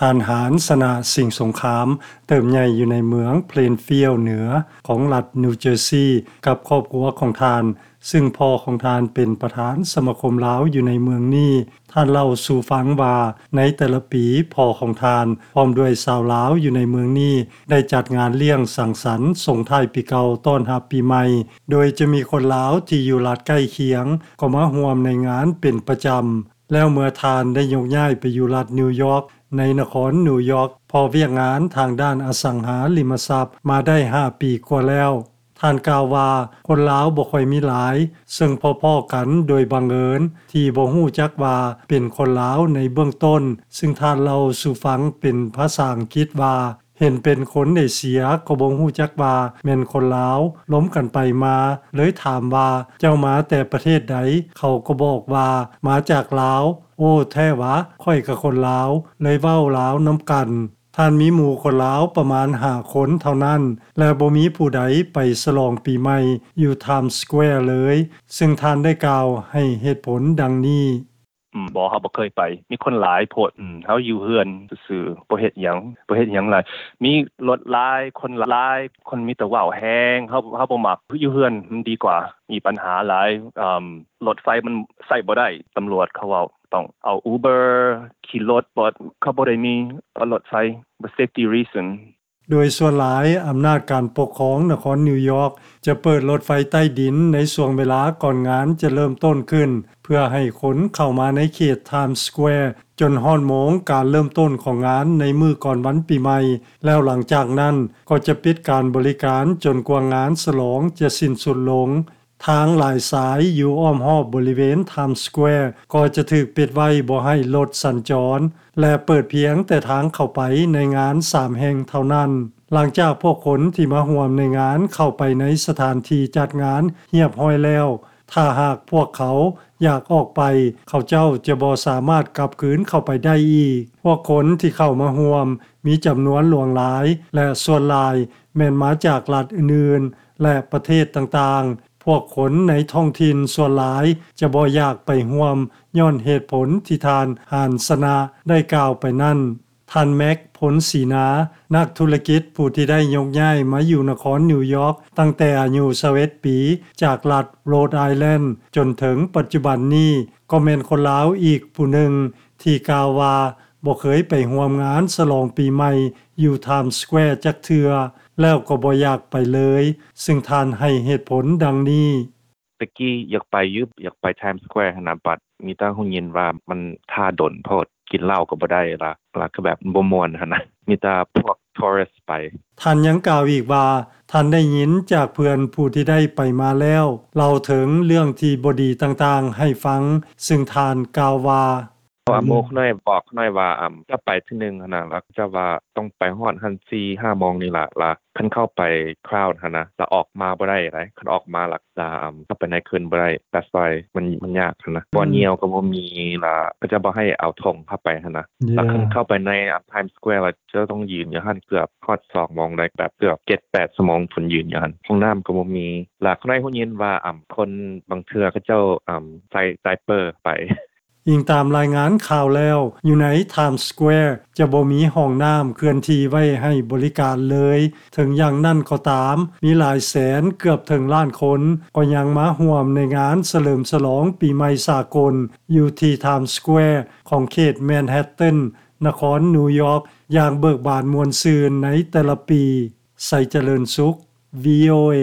ທ່ານ ຫານ ຊະນະ ສິງສົງຄາມ ເຕີບໃຫຍ່ຢູ່ໃນເມືອງ Plainfield ເໜືອ ຂອງລັດ New Jersey ກັບຄອບຄົວຂອງທ່ານ, ຊຶ່ງພໍ່ຂອງທ່ານເປັນປະທານສະມາຄົມລາວຢູ່ໃນເມືອງນີ້. ທ່ານເລົ່າສູ່ຟັງວ່າ ໃນແຕ່ລະປີ ພໍ່ຂອງທ່ານ ພ້ອມດ້ວຍຊາວລາວຢູ່ໃນເມືອງນີ້ ໄດ້ຈັດງານລ້ຽງສັງສັນສົ່ງທ້າຍປີເກົ່າຕ້ອນຮັບປີໃໝ່, ໂດຍຈະມີຄົນລາວທີ່ຢູ່ລັດໃກ້ຄຽງ ກໍມາຮ່ວມໃນງານເປັນປະຈຳ. ແລ້ວເມື່ອທ່ານໄດ້ຍົກຍ້າຍໄປຢູ່ລັດນິວຢອກ ໃນນະຄອນນິວຢອກ ເພາະວຽກງານທາງດ້ານອະສັງຫາລິມະຊັບມາໄດ້ຫ້າປີກວ່າແລ້ວ. ທ່ານກ່າວວ່າ ຄົນລາວບໍ່ຄ່ອຍມີຫຼາຍ, ເຊິ່ງພໍ້ໆກັນໂດຍບັງເອີນ ທີ່ບໍ່ຮູ້ຈັກວ່າເປັນຄົນລາວໃນເບື້ອງຕົ້ນ, ຊຶ່ງທ່ານເລົ່າສູ່ຟັງເປັນພາສາອັງກິດວ່າ ເຫັນເປັນຄົນເອເຊຍກໍບໍ່ຮູ້ຈັກວ່າແມ່ນຄົນລາວ, ລົມກັນໄປມາ ເລີຍຖາມວ່າ ເຈົ້າມາແຕ່ປະເທດໃດ? ເຂົາກໍບອກວ່າ ມາຈາກລາວ. ໂອ້ ແທ້ຫວາ? ຂ້ອຍກະຄົນລາວ, ເລີຍເວົ້າລາວນຳກັນ. ທ່ານມີໝູ່ຄົນລາວປະມານຫ້າຄົນເທົ່ານັ້ນ ແລະ ບໍ່ມີຜູ້ໃດໄປສະຫຼອງປີໃໝ່ຢູ່ Times Square ເລີຍ, ຊຶ່ງທ່ານໄດ້ກ່າວໃຫ້ເຫດຜົນດັ່ງນີ້. ອືມ ບໍ່ ເຮົາບໍ່ເຄີຍໄປ. ມີຄົນຫຼາຍໂພດ. ອືມ ເຮົາຢູ່ເຮືອນຊື່ໆ ບໍ່ເຮັດຫຍັງ, ບໍ່ເຮັດຫຍັງຫຼາຍ. ມີລົດຫຼາຍ, ຄົນຫຼາຍ, ຄົນມີແຕ່ເວົ້າແຮງ. ເຮົາ ເຮົາບໍ່ມັກ. ຢູ່ເຮືອນມັນດີກວ່າ. ມີບັນຫາຫຼາຍ. ອືມ ລົດໄຟມັນໃຊ້ບໍ່ໄດ້. ຕຳຫຼວດເຂົາເວົ້າ ຕ້ອງເອົາ Uber ຂີ່ລົດ. ບໍ່ ເຂົາບໍ່ໄດ້ມີ ເອີ ລົດໄຟ. ບໍ່ safety reason. ໂດຍສ່ວນຫຼາຍ ອຳນາດການປົກຄອງນະຄອນນິວຢອກ ຈະເປີດລົດໄຟໃຕ້ດິນໃນຊ່ວງເວລາກ່ອນງານຈະເລີ່ມຕົ້ນຂຶ້ນ ເພື່ອໃຫ້ຄົນເຂົ້າມາໃນເຂດ Times Square ຈົນຮອດໂມງການເລີ່ມຕົ້ນຂອງງານໃນມື້ກ່ອນວັນປີໃໝ່, ແລ້ວຫຼັງຈາກນັ້ນກໍຈະປິດການບໍລິການຈົນກວ່າງານສະຫຼອງຈະສິ້ນສຸດລົງ. ທາງຫຼາຍສາຍຢູ່ອ້ອມຮອບບໍລິເວນ Times Square ກໍຈະຖືກປິດໄວ້ບໍ່ໃຫ້ລົດສັນຈອນ ແລະ ເປີດພຽງແຕ່ທາງເຂົ້າໄປໃນງານສາມແຫ່ງເທົ່ານັ້ນ. ຫຼັງຈາກພວກຄົນທີ່ມາຮ່ວມໃນງານເຂົ້າໄປໃນສະຖານທີ່ຈັດງານຮຽບຮ້ອຍແລ້ວ, ຖ້າຫາກພວກເຂົາຢາກອອກໄປ, ເຂົາເຈົ້າຈະບໍ່ສາມາດກັບຄືນເຂົ້າໄປໄດ້ອີກ. ພວກຄົນທີ່ເຂົ້າມາຮ່ວມມີຈຳນວນຫຼວງຫຼາຍ ແລະ ສ່ວນຫຼາຍແມ່ນມາຈາກລັດອື່ນໆ ແລະ ປະເທດຕ່າງໆ. ພວກຄົນໃນທ້ອງຖິ່ນສ່ວນຫຼາຍຈະບໍ່ຢາກໄປຮ່ວມ ຍ້ອນເຫດຜົນທີ່ທ່ານ ຫານຊະນະ ໄດ້ກ່າວໄປນັ້ນ. ທ່ານ ແມັກ ພົນສີນາ ນັກທຸລະກິດຜູ້ທີ່ໄດ້ຍົກຍ້າຍມາຢູ່ນະຄອນນິວຢອກຕັ້ງແຕ່ອາຍຸຊາວເອັດປີ ຈາກລັດ Rhode Island ຈົນເຖິງປັດຈຸບັນນີ້ ກໍແມ່ນຄົນລາວອີກຜູ້ໜຶ່ງ ທີ່ກ່າວວ່າບໍ່ເຄີຍໄປຮ່ວມງານສະຫຼອງປີໃໝ່ຢູ່ Times Square ຈັກເທື່ອ ແລ້ວກໍບໍ່ຢາກໄປເລີຍ, ຊຶ່ງທ່ານໃຫ້ເຫດຜົນດັ່ງນີ້. ແຕ່ກີ້ຢາກໄປຢູ່ ຢາກໄປ Times Square ຫັ້ນນະ, ບັດມີແຕ່ຮູ້ຍິນວ່າມັນຖ້າດົນໂພດ, ກິນເຫຼົ້າກໍບໍ່ໄດ້ລະ, ລະກໍແບບບໍ່ມ່ວນຫັ້ນນະ, ມີແຕ່ພວກ tourist ໄປ. ທ່ານຍັງກ່າວອີກວ່າ ທ່ານໄດ້ຍິນຈາກເພື່ອນຜູ້ທີ່ໄດ້ໄປມາແລ້ວ ເລົ່າເຖິງເລື່ອງທີ່ບໍ່ດີຕ່າງໆໃຫ້ຟັງ, ຊຶ່ງທ່ານກ່າວວ່າ ເພາະວ່າໝູ່ຂ້ອຍນ້ອຍບອກຂ້ອຍນ້ອຍວ່າ ອຳ ຈະໄປເທື່ອໜຶ່ງຫັ້ນນະ, ລະເຂົາເຈົ້າວ່າຕ້ອງໄປຮອດຫັ້ນສີ່ຫ້າໂມງນີ້ລະ, ລະຄັນເຂົ້າໄປ crowd ຫັ້ນນະ ລະອອກມາບໍ່ໄດ້ໃດ, ຄັນອອກມາລະ ລະ ອຳ ເຂົ້າໄປໃນຄືນບໍ່ໄດ້, that's why ມັນ ມັນຍາກຫັ້ນນະ, ບ່ອນຍ່ຽວກໍບໍ່ມີ, ລະເຂົາເຈົ້າບໍ່ໃຫ້ເອົາຖົງເຂົ້າໄປຫັ້ນນະ, ລະຄັນເຂົ້າໄປໃນ ອຳ Times Square ລະເຈົ້າຕ້ອງຢືນຢູ່ຫັ້ນເກືອບຮອດສອງໂມງໃດ, ແບບເກືອບເຈັດແປດຊົ່ວໂມງພຸ້ນ ຢືນຢູ່ຫັ້ນ, ຫ້ອງນ້ຳກໍບໍ່ມີ, ລະຂ້ອຍໄດ້ຮູ້ຍິນວ່າ ອຳ ຄົນບາງເທື່ອເຂົາເຈົ້າ ອຳ ໃສ່ໄດເປີໄປ. ອີງຕາມລາຍງານຂ່າວແລ້ວ, ຢູ່ໃນ Times Square ຈະບໍ່ມີຫ້ອງນ້ຳເຄື່ອນທີ່ໄວ້ໃຫ້ບໍລິການເລີຍ. ເຖິງຢ່າງນັ້ນກໍຕາມ, ມີຫຼາຍແສນ, ເກືອບເຖິງລ້ານຄົນ ກໍຍັງມາຮ່ວມໃນງານສະເຫຼີມສະຫຼອງປີໃໝ່ສາກົນ ຢູ່ທີ່ Times Square ຂອງເຂດ Manhattan ນະຄອນນິວຢອກ ຢ່າງເບີກບານມ່ວນຊື່ນໃນແຕ່ລະປີ. ໄຊຈະເລີນສຸກ VOA.